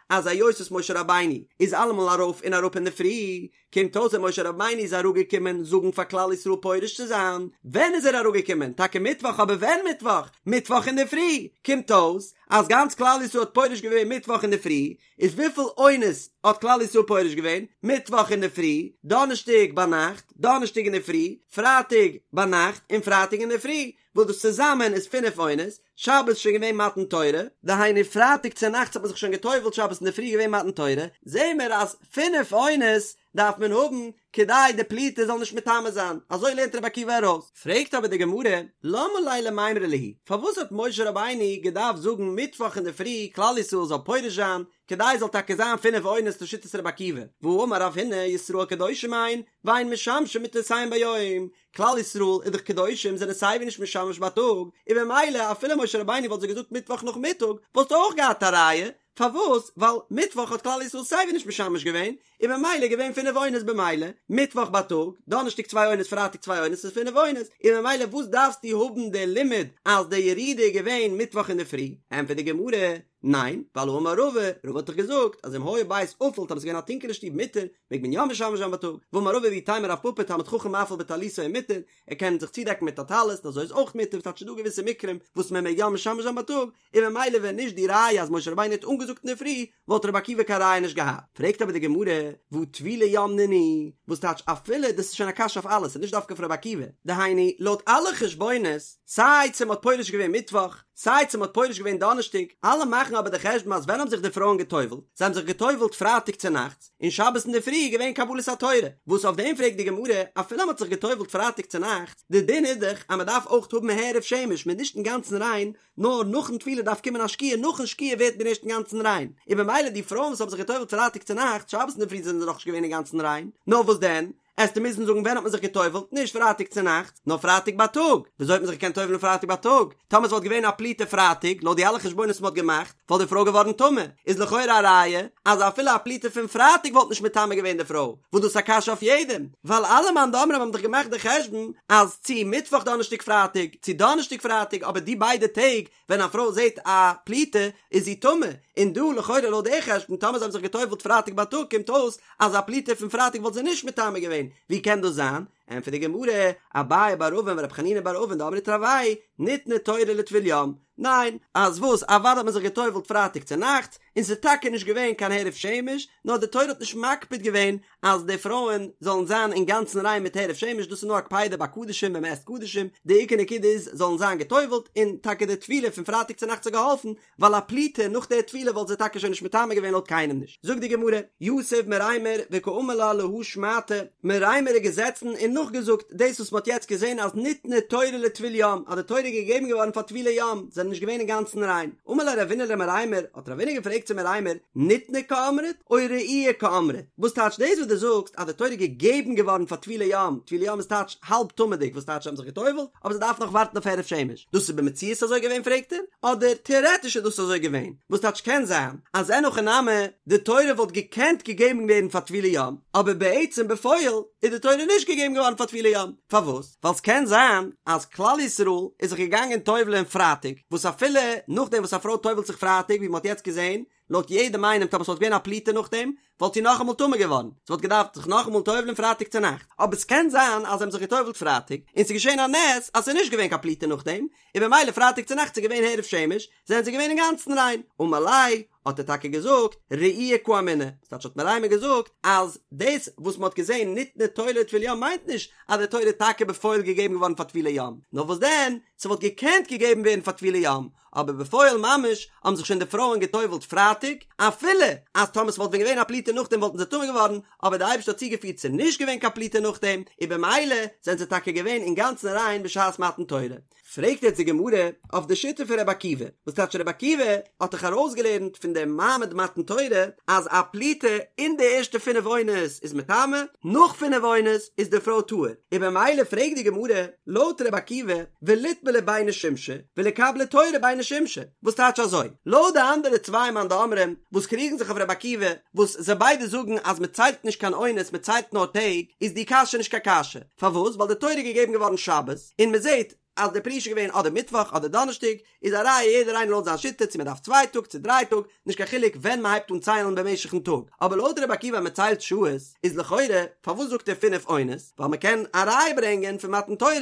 אז היות וואס משה רבינו איז אלעמאל ארויף און אראפ אינדערפרי, קומט אויס ווען משה רבינו איז אראפגעקומען זאגן פאר כלל ישראל פורש צו זיין, ווען איז ער אראפגעקומען? טאקע מיטוואך אבער ווען מיטוואך? מיטוואך אינדערפרי! קומט אויס אז גאנץ כלל ישראל האט פורש געווען מיטוואך אינדערפרי, איז וויפיל עונות האט כלל ישראל פורש געווען? מיטוואך אינדערפרי, דאנערשטאג ביינאכט, דאנערשטאג אינדערפרי, פרייטאג ביינאכט און פרייטאג אינדערפרי, וואס דאס צוזאמען איז פינף עונות, שבת איז שוין געווען מתן תורה, דהיינו פרייטאג צונאכטס האט מען זיך שוין גע'טובל'ט שבת אינדערפרי איז געווען מתן תורה, זעהן מיר אז פינף עונות דארף מען האבן כדי די פליטה זאל נישט מטמא זיין, אזוי לערנט רבי עקיבא ארויס. פרעגט אבער די גמרא, למה ליה למימרא להו, פארוואס האט משה רבינו געדארפט זאגן מיטוואך אינדערפרי כלל ישראל זאל פורש זיין, כדי עס זאל טאקע זיין פינף עונות לשיטת רבי עקיבא, והאמר רב הונא ישראל קדושים הן, ואין משמשים מטותיהן ביום, כלל ישראל איז דאך קדושים זענען סייווי נישט משמש בייטאג, און במילא אפילו משה רבינו וואלט זיי געזאגט מיטוואך נאכמיטאג וואלסטו אויך געהאט א ראיה, פארוואס? ווייל מיטוואך האט כלל ישראל סייווי נישט משמש געווען, און במילא איז געווען פינף עונות במילא, מיטוואך בייטאג, דאנערשטאג צוויי עונות פרייטאג צוויי עונות איז פינף עונות, און במילא וואס דארפסטו האבן די לימוד אז די ירידה איז געווען מיטוואך אינדערפרי? ענטפערט די גמרא, ניין, ווייל האמר רבא, רבא האט דאך געזאגט אז אם היה בית אפל טאמער ס'איז געווען א טונקעלע שטוב מותר, מעג מען יא משמש זיין בייטאג, ואמר רבא ואיתימא רב פפא תלמיד חכם מאפיל בטליתו ומותר, ער קען זיך צודעקן מיט א טלית און אזוי איז אויך מותר, ס'טייטש ס'דא געוויסע מקרים וואס מען מעג יא משמש זיין בייטאג, און ממילא ווען נישט די ראיה אז משה רבינו האט אנגעזאגט אינדערפרי, וואלט רבי עקיבא קיין ראיה נישט געהאט. פרעגט אבער די גמרא, והא טבולי יום נינהו, וואס טייטש אפילו, דאס איז שוין א קשיא אויף אלעס, ס'איז נישט דווקא אויף רבי עקיבא, דהיינו, לויט אלע חשבונות, סיי צו מ'האט פורש געווען מיטוואך, סיי צו מ'האט פורש געווען דאנערשטאג, אלע מאכן אבער די חשבון אז ווען האבן זיך די פרויען גע'טובל'ט? זיי האבן זיך גע'טובל'ט פרייטאג צונאכטס, און שבת אינדערפרי איז געווען קבלת התורה, וואס אויף דעם פרעגט די גמרא, אפילו מ'האט זיך גע'טובל'ט פרייטאג צונאכטס, די דין איז דאך אז מ'דארף אויך האבן הערב שמש, מ'איז נישט אינגאנצן ריין, נאר נאכן טבילה דארף קומען א שקיעה, נאכן שקיעה ווערט מען ערשט אינגאנצן ריין, און במילא די פרויען וואס האבן זיך גע'טובל'ט פרייטאג צונאכטס, שבת אינדערפרי זענען זיי נאכנישט געווען אינגאנצן ריין, נאר וואס דען? עסטו מוזן זאגן ווען האט מען זיך גע'טובל'ט, נישט פרייטאג צונאכטס, נאר פרייטאג בייטאג. וויאזוי האט מען זיך געקענט טובל'ן פרייטאג בייטאג? טאמער ס'וואלט געווען א פליטה פרייטאג, לויט די אלע חשבונות וואס מ'האט געמאכט, וואלט די פרוי געווארן טמא. איז לכאורה א ראיה אז אפילו א פליטה פון פרייטאג וואלט נישט מטמא געווען די פרוי, וואס דאס איז א קשיא אויף יעדעם, ווייל אלע מאן דאמרים האבן דאך געמאכט די חשבון אז צו מיטוואך דאנערשטאג פרייטאג, צו דאנערשטאג פרייטאג, אבער די ביידע טעג ווען א פרוי זעט א פליטה איז זי טמא, און דא לכאורה לויט די חשבון טאמער זיי האבן זיך גע'טובל'ט פרייטאג בייטאג קומט אויס אז א פליטה פון פרייטאג וואלט זיי נישט מטמא געווען, ווי קען דאס זיין? ענטפערט די גמרא, אביי בר אבין ורב חנינא בר אבין דאמרי תרוייהו ניתנה תורה לטבול יום, ניין, אז וואס, אוודאי האט מען זיך גע'טובל'ט פרייטאג צונאכטס, און ס'איז טאקע נישט געווען קיין הערב שמש, נאר די תורה האט נישט מקפיד געווען אז די פרויען זאלן זיין אינגאנצן ריין מיט הערב שמש, דאס איז נאר א קפידה ביי קדשים ווען מ'עסט קדשים, די עיקר נקודה איז זאלן זיין גע'טובל'ט, און טאקע די טבילה פון פרייטאג צונאכטס האט געהאלפן, ווייל א פליטה נאך די טבילה וואלט זיי טאקע שוין נישט מטמא געווען לויט קיינעם נישט. זאגט די גמרא, יתיב מרימר וקאמר לה להא שמעתא, מרימר איז געזעצן און נאכגעזאגט דאס וואס מ'האט יעצט געזען אז ניתנה תורה לטבול יום, אז די תורה איז געגעבן געווארן פאר טבולי יום, זענען נישט געווען אינגאנצן ריין. אמר ליה רבינא למרימר, האט רבינא געפרעגט צו מרימר, ניתנה קאמרת או ראויה קאמרת? וואס טייטש דאס וואס דו זאגסט אז די תורה איז געגעבן געווארן פאר טבולי יום, טבולי יום איז טייטש האלב טמא'דיג, וואס טייטש זיי האבן זיך גע'טובל'ט, אבער זיי דארפן נאך ווארטן אויף הערב שמש, דאס איז במציאות אזוי געווען פרעגט ער, אדער טעארעטיש איז דאס אזוי געווען, וואס טייטש קען זיין אז אין הכי נמי די תורה וואלט געקענט געגעבן ווערן פאר טבולי יום, אבער בעצם בפועל איז די תורה נישט געגעבן געווארן פאר טבולי יום, פארוואס? ווייל ס'קען זיין אז כלל ישראל איז זיך געגאנגען טובל'ען פרייטאג, וואס אפילו נאכדעם וואס א פרוי טובל'ט זיך פרייטאג ווי מ'האט יעצט געזען, לויט יעדעם איינעם טאמער ס'וואלט געווען א פליטה נאכדעם, וואלט זי נאכאמאל טמא געווארן, זי וואלט געדארפט זיך נאכאמאל טובל'ען פרייטאג צונאכט, אבער ס'קען זיין אז זיי האבן זיך געטובל'ט פרייטאג, און ס'איז געשען א נס אז ס'איז נישט געווען קיין פליטה נאכדעם, און במילא פרייטאג צונאכטס איז געווען הערב שמש, זענען זיי געווען אינגאנצן ריין, אמר ליה, האט ער טאקע געזאגט, ראויה קאמינא, ס'טייטש האט מרימר געזאגט אז דאס וואס מ'האט געזען ניתנה תורה לטבול יום מיינט נישט אז די תורה איז טאקע בפועל געגעבן געווארן פאר טבולי יום, נאר וואס דען, ס'וואלט געקענט געגעבן ווערן פאר טבולי יום, אבער בפועל ממש האבן זיך שוין די פרויען גע'טובל'ט פרייטאג, אפילו אז טאמער ס'וואלט ווען געווען א פליטה נאכדעם וואלטן זיי טמא געווארן, אבער די אייבערשטער האט צוגעפירט ס'איז נישט געווען קיין פליטה נאכדעם, און במילא זענען זיי טאקע געווען אינגאנצן ריין בשעת מתן תורה. פרעגט יעצט די גמרא אויף די שיטה פון רבי עקיבא, וואס טייטש רבי עקיבא האט דאך ארויסגעלערנט פון דעם מעמד מתן תורה אז א פליטה אין די ערשטע פינף עונות איז מטמא, נאך פינף עונות איז די פרוי טהור, און במילא פרעגט די גמרא לויט רבי עקיבא וליטבלו ביני שמשי וליקבלו תורה ביני שמשי, וואס טייטש אזוי? לויט די אנדערע צוויי מאן דאמרים וואס קריגן זיך אויף רבי עקיבא, וואס זיי ביידע זאגן אז מען ציילט נישט קיין עונות מען ציילט נאר טעג, איז די קשיא נישט קיין קשיא, פארוואס? ווייל די תורה איז געגעבן געווארן שבת, און מען זעט אז די פרישה איז געווען אדער מיטוואך אדער דאנערשטאג, איז א ראיה יעדער איינער לויט זיין שיטה צו מען דארף צוויי טאג צו דריי טאג, נישט קיין חילוק ווען מען הייבט אן ציילן במשך'ן טאג, אבער לויט רבי עקיבא אז מען ציילט שעות, איז לכאורה פארוואס זאגט ער פינף עונות, ווייל מען קען א ראיה ברענגען פון מתן תורה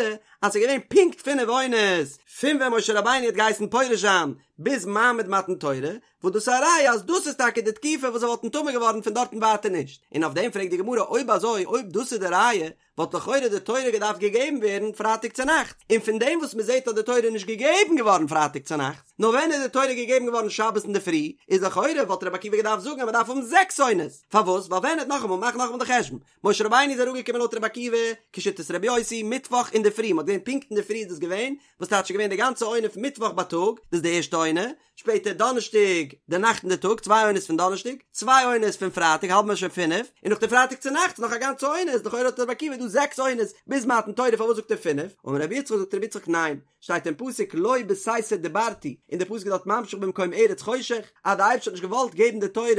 אז ס'איז געווען פונקט פינף עונות פון ווען משה רבינו האט געהייסן פורש זיין ביז מעמד מתן תורה, וואס דאס איז א ראיה אז דאס איז טאקע די תקופה וואס זיי וואלטן טמא געווארן פון דארטן ווייטער נישט, און אויף דעם פרעגט די גמרא אויב אזוי אויב דאס איז די ראיה וואלט לכאורה די תורה געדארפט געגעבן ווערן פרייטאג צונאכטס, און פון דעם וואס מען זעט אז די תורה איז נישט געגעבן געווארן פרייטאג צונאכטס, נאר ווען איז די תורה געגעבן געווארן שבת אינדערפרי, איז לכאורה וואלט רבי עקיבא געדארפט זאגן אז מען דארף האבן זעקס עונות, פארוואס? ווייל ווען האט נאכאמאל מאך נאכאמאל די חשבון, משה רבינו איז אראפגעקומען לויט רבי עקיבא, כשיטת רבי יוסי, מיטוואך אינדערפרי, מען האט געזען פונקט אינדערפרי איז דאס געווען, וואס טייטש איז געווען די גאנצע עונה פון מיטוואך בייטאג, דאס איז די ערשטע עונה, שפעטער דאנערשטאג די נאכט און די טאג, צוויי עונות פון דאנערשטאג, צוויי עונות פון פרייטאג האלט מען שוין פינף, און נאך די פרייטאג צו נאכטס נאך א גאנצע עונה איז לכאורה לויט רבי עקיבא דא זעקס עונות ביז מתן תורה פארוואס זאגט ער פינף? אמר רבי יצחק זאגט רבי יצחק ניין, שטייט אין פסוק לא בסתר דיברתי, און די פסוק איז דארט ממשיך במקום ארץ חושך, אז די אייבערשטער האט נישט געוואלט געבן די תורה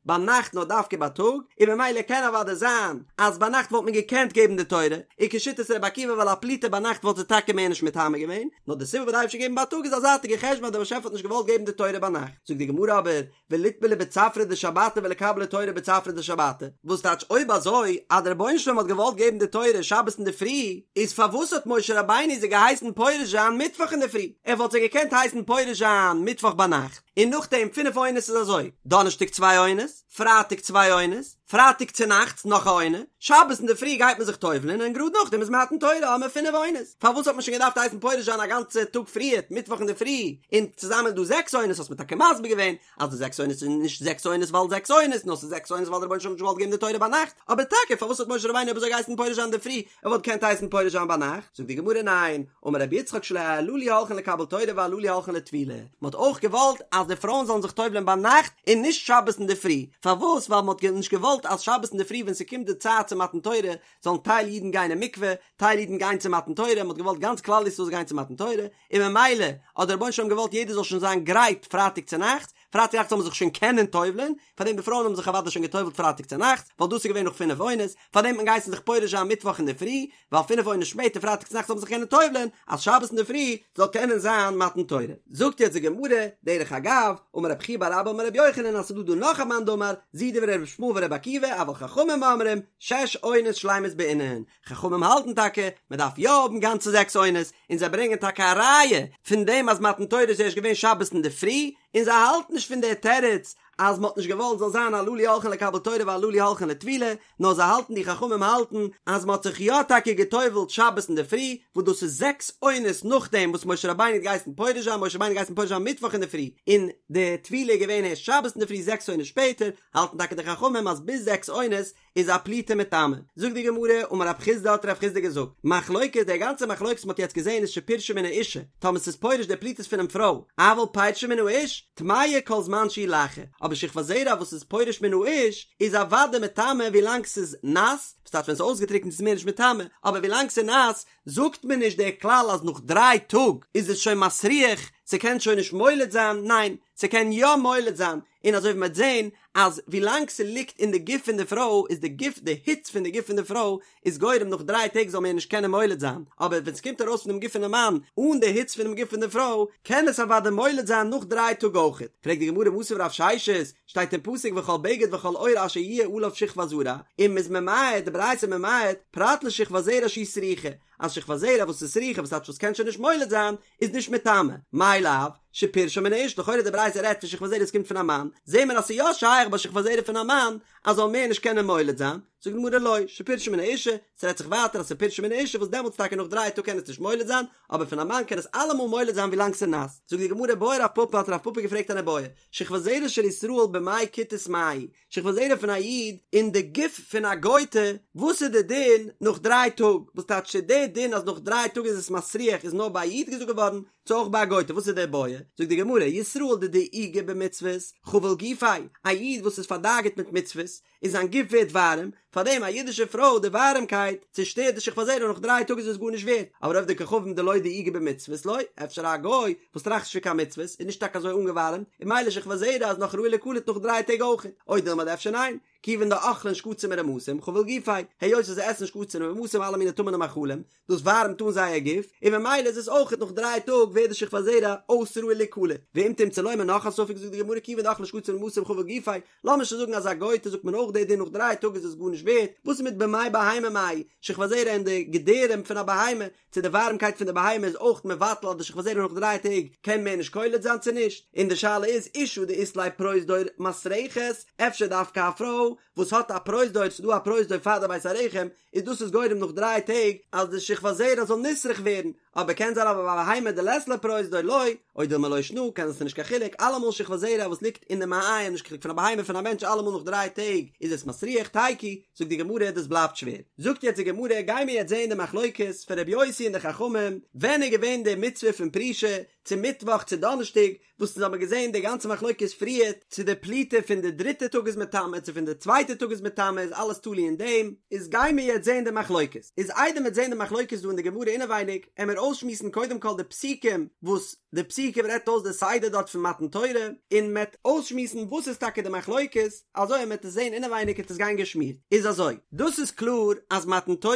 ביינאכט נאר דווקא בייטאג, און ממילא קען אוודאי זיין אז ביינאכט וואלט מען געקענט געבן די תורה, און כשיטת רבי עקיבא ווייל א פליטה ביינאכט וואלט זי טאקע מער נישט מטמא געווען, נאר די סיבה וואס די אייבערשטער געבן בייטאג איז א זייטיגע חשבון אז דער באשעפער האט נישט געוואלט געבן די תורה ביינאכט. זאגט די גמרא אבער, וליטבלו בצפרא דשבתא וליקבלו תורה בצפרא דשבתא, וואס טייטש אויב אזוי אז דער רבונו של עולם האט געוואלט געבן די תורה שבת אינדערפרי, איז פארוואס האט משה רבינו זיי געהייסן פורש זיין מיטוואך אינדערפרי? ער וואלט זיי געקענט הייסן פורש זיין מיטוואך ביינאכט, און נאכדעם פינף עונות איז אזוי, דאנערשטאג צוויי עונות, פרייטאג צוויי עונות, פרייטאג צונאכטס נאך א עונה, שבת אינדערפרי גייט מען זיך טובל'ען און גראד נאכדעם איז מתן תורה האבן מיר פינף עונות, פארוואס האט מען שוין געדארפט הייסן פורש זיין א גאנצע טאג פריערט מיטוואך אינדערפרי, און צוזאמען איז דא זעקס עונות האסט מיר טאקע מסביר געווען אז די זעקס עונות איז נישט זעקס עונות ווייל זעקס עונות נאר ס'איז זעקס עונות ווייל דער רבונו של עולם האט נישט געוואלט געבן די תורה ביינאכט, אבער טאקע פארוואס האט משה רבינו אויב אזוי געהייסן פורש זיין אינדערפרי ער וואלט געקענט הייסן פורש זיין ביינאכט, זאגט די גמרא ניין, אמר רבי יצחק שלא הללו הולכין לקבל תורה והללו הולכין לטבילה, מען האט אויך געוואלט אז די פרויען זאלן זיך טובל'ען ביינאכט און נישט שבת אינדערפרי, פארוואס ווייל מען האט נישט געוואלט אז שבת אינדערפרי ווען ס'קומט די צייט צו מתן תורה זאלן טייל אידן גיין אין מקווה, טייל אידן גיין צו מתן תורה, מען האט געוואלט גאנץ כלל ישראל זאל גיין צו מתן תורה, און ממילא האט דער רבונו של עולם געוואלט יעדער זאל שוין זיין גרייט פרייטאג צונאכטס, פרייטאג נאכט זאל מען זיך שוין קענען טובל'ען, פארדעם די פרויען האבן זיך אוודאי שוין געטובל'ט פרייטאג צונאכטס, ווייל דאס איז געווען נאך פינף עונות, פארדעם האט מען געהייסן זיך פורש זיין מיטוואך אינדערפרי, ווייל פינף עונות שפעטער פרייטאג צונאכטס זאל מען זיך קענען טובל'ען, אז שבת אינדערפרי זאל קענען זיין מתן תורה. זאגט יעצט די גמרא, דרך אגב, אמר רב חייא בר אבא אמר רבי יוחנן אז ס'דא דא נאך א מאן דאמר, זו דברי רבי ישמעאל ורבי עקיבא, אבל חכמים אומרים, שש עונות שלימות בעינן, חכמים האלטן טאקע מען דארף יא האבן גאנצע זעקס עונות, און זיי ברענגען טאקע א ראיה פון דעם אז מתן תורה איז ערשט געווען שבת אינדערפרי, און זיי האלטן נישט פון דער תירוץ אז מען האט נישט געוואלט זאל זיין הללו הולכין לקבל תורה והללו הולכין לטבילה, נאר זיי האלטן די חכמים האלטן אז מען האט זיך יא טאקע גע'טובל'ט שבת אינדערפרי, וואס דאס איז זעקס עונות נאכדעם וואס משה רבינו האט געהייסן פורש זיין, משה רבינו האט געהייסן פורש זיין מיטוואך אינדערפרי, און די טבילה איז געווען ערשט שבת אינדערפרי זעקס עונות שפעטער, האלטן טאקע די חכמים אז ביז זעקס עונות איז א פליטה מטמא. זאגט די גמרא, אמר רב חסדא האט רב חסדא געזאגט, מחלוקת, די גאנצע מחלוקת וואס מ'האט יעצט געזען איז שפירשה מן האישה, טאמער ס'איז פורש די פליטות פונעם פרוי, אבל פירשה מן האיש, טמאה כל זמן שהיא לחה, אבער שכבת זרע וואס איז פורש מן האיש, איז אוודאי מטמא ווילאנג ס'איז נאס, וואס טייטש ווען ס'איז אויסגעטריקנט איז מער נישט מטמא, אבער ווילאנג ס'איז נאס, זאגט מען נישט דער כלל אז נאך דריי טאג איז עס שוין מסריח, ס'קען שוין נישט מוליד זיין, ניין, ס'קען יא מוליד זיין, און אזוי ווי מ'וועט זען אז ווילאנג ס'ליגט אין די גוף פון די פרוי איז די גוף די היץ פון די גוף פון די פרוי איז גורם נאך דריי טעג זאל מער נישט קענען מוליד זיין, אבער ווען ס'קומט ארויס פונעם גוף פונעם מאן אן די היץ פונעם גוף פון די פרוי קען עס אוודאי מוליד זיין נאך דריי טאג אויכעט. פרעגט די גמרא מתיב רב ששת, שטייט אין פסוק וכל בגד וכל עור אשר יהיה עליו שכבת זרע, און מ'איז ממעט, די ברייתא ממעט, פרט לשכבת זרע שהיא סרוחה, אז שכבת זרע וואס איז סרוחה וואס טייטש וואס קען שוין נישט מוליד זיין, איז נישט מטמא, מאי לאו? שפירשה מן האשה, לכאורה די ברייתא רעדט פון שכבת זרע וואס קומט פון א מאן, זעהן מיר אז ס'איז יא שייך ביי שכבת זרע פון א מאן אז זאל מער נישט קענען מוליד זיין, זאגט די גמרא לא, שפירשה מן האשה, ס'רעדט זיך ווייטער אז ס'פירשה מן האשה וואס דעמאלטס טאקע נאך דריי טאג קען עס נישט מוליד זיין, אבער פון א מאן קען עס אלעמאל מוליד זיין ווילאנג ס'איז נאס. זאגט די גמרא בעי רב פפא האט רב פפא געפרעגט אן איבעיא, שכבת זרע של ישראל במעי כותית מהו, שכבת זרע פון א איד אין די גוף פון א גוי'טע, וואס איז די דין נאך דריי טאג? וואס טייטש צו די דין אז נאך דריי טאג איז עס מסריח איז נאר ביי א איד געזאגט געווארן, צו אויך ביי א גוי'טע? וואס איז די איבעיא? זאגט די גמרא, ישראל דדאיגי במצוות, חביל גופיה, א איד וואס איז פארדאגה'ט מיט מצוות, און זיין גוף ווערט ווארעם, פארדעם א אידישע פרוי די ווארעמקייט צושטערט די שכבת זרע נאך דריי טאג איז עס גארנישט ווערט, אבער עובדי כוכבים דלא דאיגי במצוות לא, אפשר א גוי וואס טראכט נישט פון קיין מצוות איז נישט טאקע אזוי אנגעווארעמט, און ממילא שכבת זרע איז נאך ראוי ליקלט נאך דריי טעג אויכעט, או דילמא אדער אפשר ניין, כיוון דאכלין שקצים ורמשים חביל גופיה, היות וואס זיי עסן שקצים ורמשים אלע מיני טמא'נע מאכלים, דאס ווארעמט אן זייער גוף, און ממילא איז עס אויכעט נאך דריי טאג ווערט די שכבת זרע אויס ראוי ליקלט. ואם תמצא לומר נאך א ספק זאגט די גמרא כיוון דאכלין שקצים ורמשים חביל גופיה, לאמיר שוין זאגן אז א גוי'טע זאגט מען אויך די דין נאך דריי טאג איז עס גארנישט ווערט, וואס איז מיט במעי בהמה מהו, שכבת זרע אין די געדערים פון א בהמה, צו די ווארעמקייט פון די בהמה איז אויך מבטל אז די שכבת זרע נאך דריי טעג קען מער נישט קולט זיין צו נישט, און די שאלה איז אשה דאית לה פרוזדור מסרחת, אפשר דווקא א פרוי וואס האט א פרוזדור, ס'איז דא א פרוזדור פאר די בית הרחם, איז דאס איז גורם נאך דריי טעג אז די שכבת זרע זאל נסרח ווערן, אבער קען זיין אבער ביי בהמה דלית לה פרוזדור לא, או דילמא לא שנא, קען זיין ס'נישט קיין חילוק, אלעמאל שכבת זרע וואס ליגט אין די מעיים נישט קיין חילוק פון א בהמה פון א מענטש אלעמאל נאך דריי טעג איז עס מסריח תיקו, זאגט די גמרא דאס בלייבט שווער, זאגט יעצט די גמרא גיימיר יעצט זעהן די מחלוקת פון רבי יוסי און די חכמים ווען איז געווען די מצוה פון פרישה צו מיטוואך צו דאנערשטאג, וואס אונז האבן געזען די גאנצע מחלוקת פריערט, צו די פליטה פון די דריטע טאג איז מטמא צו פון די צווייטע טאג איז מטמא איז אלעס תלוי אין דעם, איז גיימיר יעצט זען די מחלוקת, איז איידער מ'עט זען די מחלוקת דא אין די גמרא אינעווייניג, עמיר אויסשמועסן קודם כל די פסוקים וואס די פסוקים רעדט אויס די סדר דארט פון מתן תורה, און מ'עט אויסשמועסן וואס איז טאקע די מחלוקת, אזוי אז מ'עט עס זען אינעווייניג עט עס גיין געשמירט, איז אזוי, דאס איז קלאר אז מתן תורה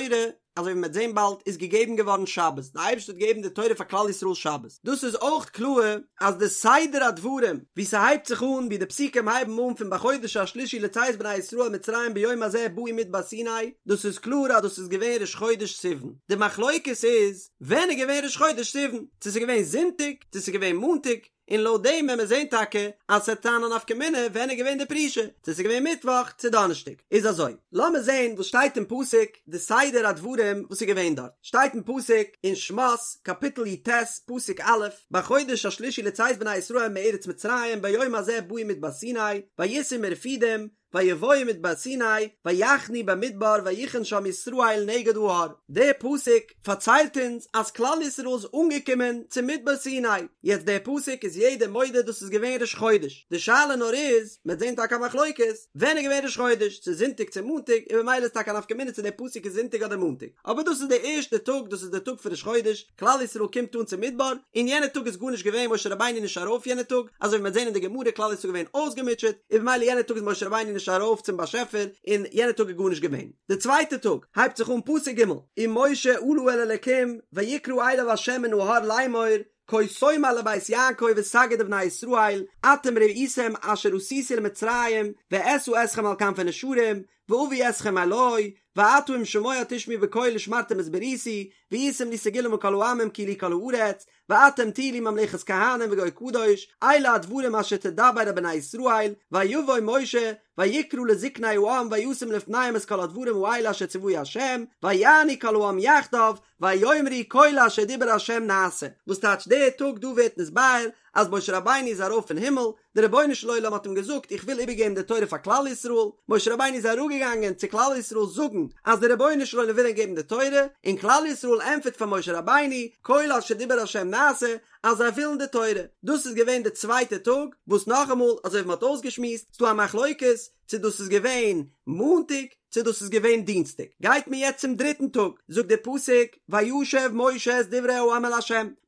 אזוי ווי מ'וועט זען באלד, איז געגעבן געווארן שבת, די אייבערשטער האט געגעבן די תורה פאר כלל ישראל שבת, דאס איז אויך קלאר אז די סדר הדברים ווי ס'הייבט זיך אן, ווי די פסוקים הייבן אן פון בחודש השלישי לצאת בני ישראל מצרים ביום הזה באו מדבר סיני, דאס איז קלאר אז דאס איז געווען ראש חודש סיוון, די מחלוקת איז ווען איז געווען ראש חודש סיוון, צו ס'איז געווען זונטאג, צו ס'איז געווען מאנטאג, און לויט דעם וועט מען זען טאקע אז ס'וועט זיין א נפקא מינה ווען איז געווען די פרישה, צו ס'איז געווען מיטוואך צו דאנערשטאג. איז אזוי, לאמיר זען וואס שטייט אין פסוק, די סדר הדברים וואס איז געווען דארט. שטייט אין פסוק אין שמות קאפיטל י"ט פסוק א', בחודש השלישי לצאת בני ישראל מארץ מצרים ביום הזה באו מדבר סיני, ויסעו מרפידים, ויבואו מדבר סיני, ויחנו במדבר ויחן שם ישראל נגד ההר. דער פסוק פארציילט אונז אז כלל ישראל איז אנגעקומען צום מדבר סיני, יעצט דער פסוק איז יעדער מודה דאס איז געווען ראש חודש, די שאלה נאר איז, מ'וועט זען טאקע א מחלוקת, ווען איז געווען ראש חודש, צו זונטאג צו מאנטאג, און ממילא איז טאקע א נפקא מינה צו דער פסוק איז זונטאג אדער מאנטאג, אבער דאס איז דער ערשטער טאג, דאס איז דער טאג פון ראש חודש, כלל ישראל קומט אן צום מדבר, און יענע טאג איז גארנישט געווען, משה רבינו איז נישט ארויף יענע טאג, אזוי ווי מ'וועט זען אין די גמרא, כלל ישראל איז געווען אויסגעמוטשעט, און במילא יענע טאג איז משה רבינו נישט ארויף צום באשעפער, און יענע טאג איז גארנישט געווען. די צווייטע טאג הייבט זיך אן פסוק ג', ומשה עלה אל האלקים ויקרא אליו ה' מן ההר לאמור, כה תאמר לבית יעקב ותגיד לבני ישראל, אתם ראיתם אשר עשיתי למצרים, ואשא אתכם על כנפי נשרים, ואביא אתכם אלי, ועתה אם שמוע תשמעו בקולי ושמרתם את בריתי, והייתם לי סגולה מכל העמים כי לי כל הארץ, ואתם תהיו לי ממלכת כהנים וגוי קדוש, אלה הדברים אשר תדבר אל בני ישראל, ויבא משה, ויקרא לזקני העם וישם לפניהם את כל הדברים האלה אשר צוהו ה', ויענו כל העם יחדיו, ויאמרו כל אשר דיבר ה' נעשה. וואס טייטש דער טאג דא ווערט נתבאר אז משה רבינו איז ארויף אין הימל, דער רבונו של עולם האט אים געזאגט איך וויל איבערגעבן די תורה פאר כלל ישראל, משה רבינו איז אראפגעגאנגען צו כלל ישראל זאגן אז דער רבונו של עולם וויל אים געבן די תורה, און כלל ישראל ענטפערט פאר משה רבינו כל אשר דיבר ה' נעשה אז זיי ווילן די תורה, דאס איז געווען די צווייטע טאג, וואס נאכאמאל אזוי ווי מען האט אויסגעשמועסט, ס'דא א מחלוקת צו דאס איז געווען מאנטאג צו דאס איז געווען דינסטאג, גייט מען יעצט צום דריטן טאג, זאגט דער פסוק, וישב משה את דברי העם אל ה',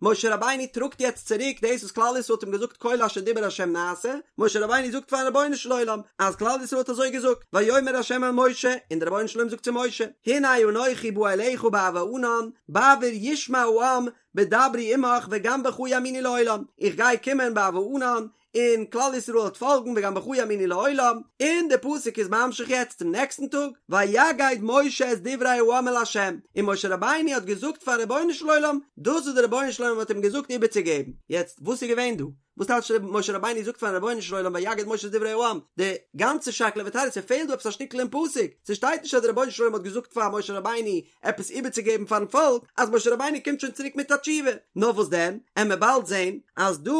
משה רבינו טראגט יעצט צוריק דאס וואס כלל ישראל האט אים געזאגט כל אשר דיבר ה' נעשה, משה רבינו זאגט פארן רבונו של עולם אז כלל ישראל האט אזוי געזאגט, ויאמר ה' אל משה, און דער רבונו של עולם זאגט צו משה, הנה אנכי בא אליך בעב הענן, בעבור ישמע העם בדברי עמך וגם בך יאמינו לעולם, איך גיי קומען בעב הענן, און כלל ישראל וועט פאלגן וגם בך יאמינו לעולם, און די פסוק איז ממשיך יעצט צום נעקסטן טאג, ויגד משה את דברי העם אל ה', און משה רבינו האט געזאגט פארן רבונו של עולם דאס וואס דער רבונו של עולם האט אים געזאגט איבערצוגעבן, יעצט וואס איז געווען דא? וואס טייטש משה רבינו זאגט פארן רבונו של עולם ויגד משה את דברי העם? די גאנצע שקלא וטריא, ס'פעלט דא עפעס א שטיקל אין פסוק, ס'שטייט נישט אז דער רבונו של עולם האט געזאגט פאר משה רבינו עפעס איבערצוגעבן פארן פאלק, אז משה רבינו קומט שוין צוריק מיט א תשובה. נאר וואס דען, עמיר באלד זען אז דא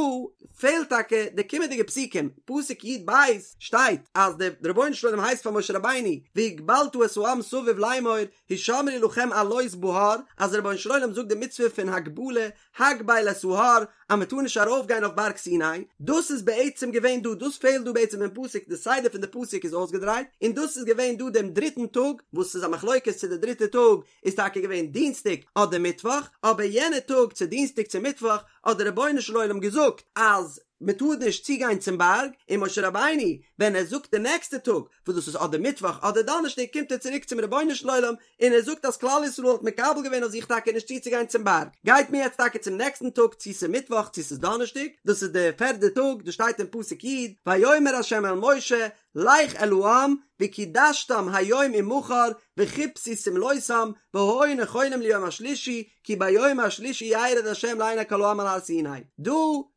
פעלט טאקע די קומענדיגע פסוקים, פסוק י"ב שטייט אז דער רבונו של עולם הייסט פאר משה רבינו והגבלת את העם סביב לאמור הישמרו לכם עלות בהר, אז דער רבונו של עולם זאגט די מצוה פון הגבלה, הגבל את ההר, אז מען טאר נישט ארויף גיין אויף בארג סיני, דאס איז בעצם געווען דא, דאס פעלט דא בעצם אין פסוק, די סדר פון די פסוק איז אויסגעדרייט, און דאס איז געווען דא דעם דריטן טאג, וואס איז א מחלוקת צו די דריטע טאג איז טאקע געווען דינסטאג אדער מיטוואך, אבער יענע טאג צו דינסטאג צו מיטוואך האט דער רבונו של עולם געזאגט אז מען טאר נישט צוגיין צום בארג, און משה רבינו ווען ער זאגט די נעקסטע טאג, וואס דאס איז אדער מיטוואך אדער דאנערשטאג קומט ער צוריק צום רבונו של עולם און ער זאגט אז כלל ישראל האט מקבל געווען אויף זיך טאקע נישט צוצוגיין צום בארג, גייט מען יעצט טאקע צום נעקסטן טאג צו ס'איז מיטוואך צו ס'איז דאנערשטאג, דאס איז די פערדע טאג, דאס שטייט אין פסוק י', ויאמר ה' אל משה לך אל העם וקידשתם היום ומחר וכבסו שמלותם והיו נכונים ליום השלישי כי ביום השלישי ירד ה' לעיני כל העם על הר סיני. דא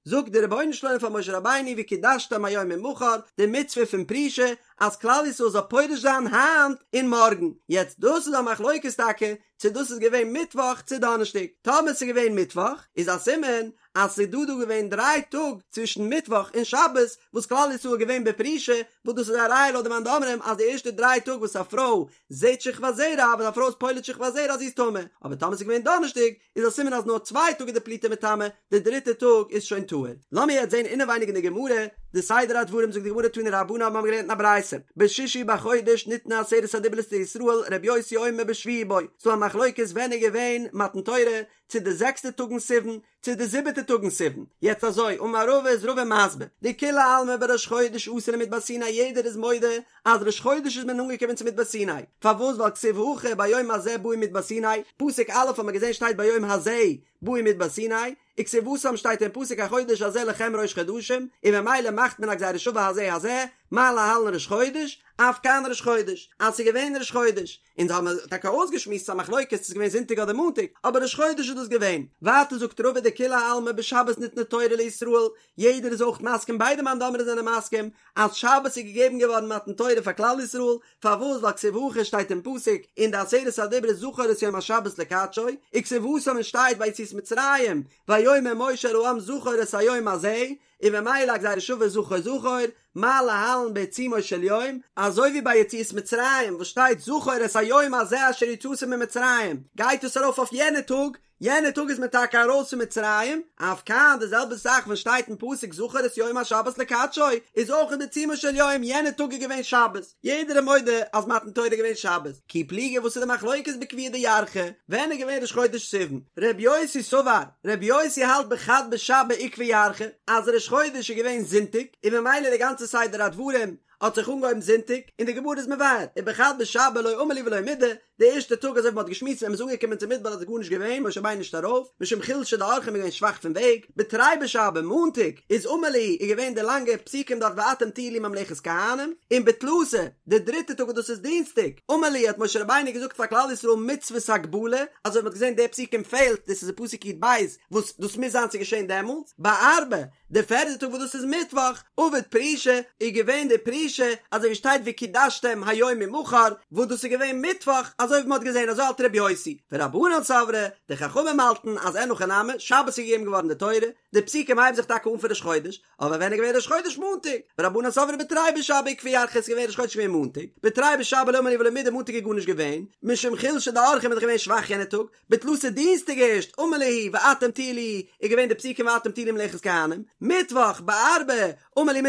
זאגט דער רבונו של עולם פאר משה רבינו וקידשתם היום ומחר, די מצוה פון פרישה, אז כלל ישראל זאל פורש זיין היינט און מארגן. יעצט דאס איז א מחלוקת טאקע צו דאס איז געווען מיטוואך צו דאנערשטאג. טאמער ס'איז געווען מיטוואך איז א סימן אז ס'איז דא דא געווען דריי טאג צווישן מיטוואך און שבת וואס כלל ישראל איז געווען בפרישה, וואס דאס איז א ראיה לויט די מאן דאמרים אז די ערשטע דריי טאג וואס א פרוי זעהט שכבת זרע ווען א פרוי איז פולט שכבת זרע אז זי איז טמא, אבער טאמער ס'איז געווען דאנערשטאג איז א סימן אז נאר צוויי טאג איז די פליטה מטמא, די דריטע טאג איז שוין טהור. לאמיר יעצט זעהן אינעווייניג אין די גמרא די סדר הדברים זאגט די גמרא תנו רבנן האבן מיר געלערנט אין א ברייתא בשישי בחודש ניתנו עשרת הדיברות לישראל ר' יוסי אומר בשביעי בו, ס'דא א מחלוקת ווען איז געווען מתן תורה, צו די זעקסטע טאג אין סיוון, צו די זיבעטע טאג אין סיוון, יעצט אזוי, אמר רבא איז רבא מסביר, דכולי עלמא בראש חודש אתו למדבר סיני יעדער איז מודה אז ראש חודש איז מען אנגעקומען צו מדבר סיני, פארוואס ווייל כתיב הכא ביום הזה באו מדבר סיני, פסוק א' האט מען געזען שטייט ביום הזה באו מדבר סיני, וכתיב התם שטייט אין פסוק החודש הזה לכם ראש חדשים, און ממילא מאכט מען א גזירה שווה הזה הזה, מה להלן ראש חודש, אף כאן ראש חודש, אז ס'איז געווען ראש חודש, אונז האבן טאקע אויסגעשמועסט ס'איז א מחלוקת צו ס'איז געווען זונטאג אדער מאנטאג, אבער ראש חודש איז דאס געווען. ווייטער זאגט רבא דכולי עלמא בשבת ניתנה תורה לישראל, יעדער איז אויך מסכים ביידע מאן דאמרים זענען מסכים אז שבת איז געגעבן געווארן מתן תורה פאר כלל ישראל, פארוואס ווייל כתיב הכא שטייט אין פסוק אין די עשרת הדיברות זכור את יום השבת לקדשו, וכתיב התם און שטייט ביי יציאת מצרים ויאמר משה אל העם זכור את היום הזה, און ממילא א גזירה שווה זכור זכור, מה להלן בעיצומו של יום, אזוי ווי ביי יציאת מצרים וואס שטייט זכור את היום הזה אשר יצאתם ממצרים, גייט עס ארויף אויף יענע טאג, יענע טאג איז מען טאקע ארויס פון מצרים, אף כאן די זעלבע זאך ווען שטייט אין פסוק זכור את יום השבת לקדשו, איז אויך בעיצומו של יום, יענע טאג איז געווען שבת, יעדער איז מודה אז מתן תורה איז געווען שבת, כי פליגי וואס איז די מחלוקת בקביעא דירחא, ווען איז געווען ראש חודש סיוון? ר' יוסי סבר, ר' יוסי האלט בחד בשבא איקבע ירחא, אז ראש חודש איז געווען זונטאג, און ממילא די גאנצע סדר הדברים האט זיך אנגעהויבן זונטאג, און די גמרא איז מבאר, ובחד בשבא לא אמר להו ולא מידי, די ערשטע טאג אזוי ווי מ'האט געשמועסט ווען מ'איז אנגעקומען צום מדבר איז גארנישט געווען, משה רבינו נישט ארויף, משום חולשא דאורחא מ'איז געווען שוואך פון וועג, בתרי בשבא, מאנטאג, איז אמר להו, איז געווען די לאנגע פסוקים דארט ואתם תהיו לי ממלכת כהנים, און בתלתא, די דריטע טאג וואס דאס איז דינסטאג, אמר להו האט משה רבינו געזאגט פאר כלל ישראל מצוות הגבלה, אזוי ווי מ'האט געזען די פסוקים פעלט, דאס איז אין פסוק י"ב, וואס דאס מוז זיין ס'איז געשען דעמאלטס, בארבעה, די פערדע טאג וואס דאס איז מיטוואך, עבד פרישה, איז געווען די פרישה, אזוי ווי שטייט וקידשתם היום ומחר, וואס דאס איז געווען מיטוואך, אזוי ווי מ'האט געזען, אזוי האלט רבי יוסי, ורבנן סברי, די חכמים האלטן אז אין הכי נמי, שבת איז געגעבן געווארן די תורה, די פסוקים הייבן זיך טאקע אן פון ראש חודש, אבער ווען איז געווען ראש חודש מאנטאג? ורבנן סברי בתרי בשבא איקבע ירחא איז געווען ראש חודש געווען מאנטאג, בתרי בשבא לא אמר להו ולא מידי מאנטאג איז גארנישט געווען, משום חולשא דאורחא מ'איז דאך געווען שוואך יענע טאג, בתלתא דינסטאג ערשט אמר להו ואתם תהיו לי איז געווען די פסוקים ואתם תהיו לי ממלכת כהנים, מיטוואך בארבעה אמר להו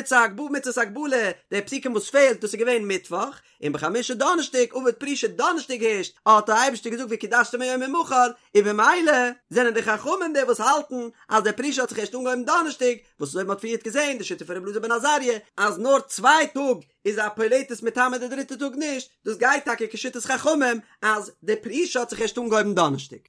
מצות הגבלה די פסוקים וואס פעלט דאס איז געווען מיטוואך, און בחמישה דאנערשטאג עבד פרישה דאנערשטאג הערשט האט דער אייבערשטער געזאגט וקידשתם היום ומחר, און במילא זענען די חכמים די וואס האלטן אז די פרישה האט זיך ערשט אנגעהויבן דאנערשטאג, וואס אזוי ווי מען האט פריערט געזען די שיטה פון רבי אלעזר בן עזריה אז נאר צוויי טאג איז א פולטת מטמא די דריטע טאג נישט, דאס גייט טאקע כשיטת חכמים אז די פרישה האט זיך ערשט אנגעהויבן דאנערשטאג.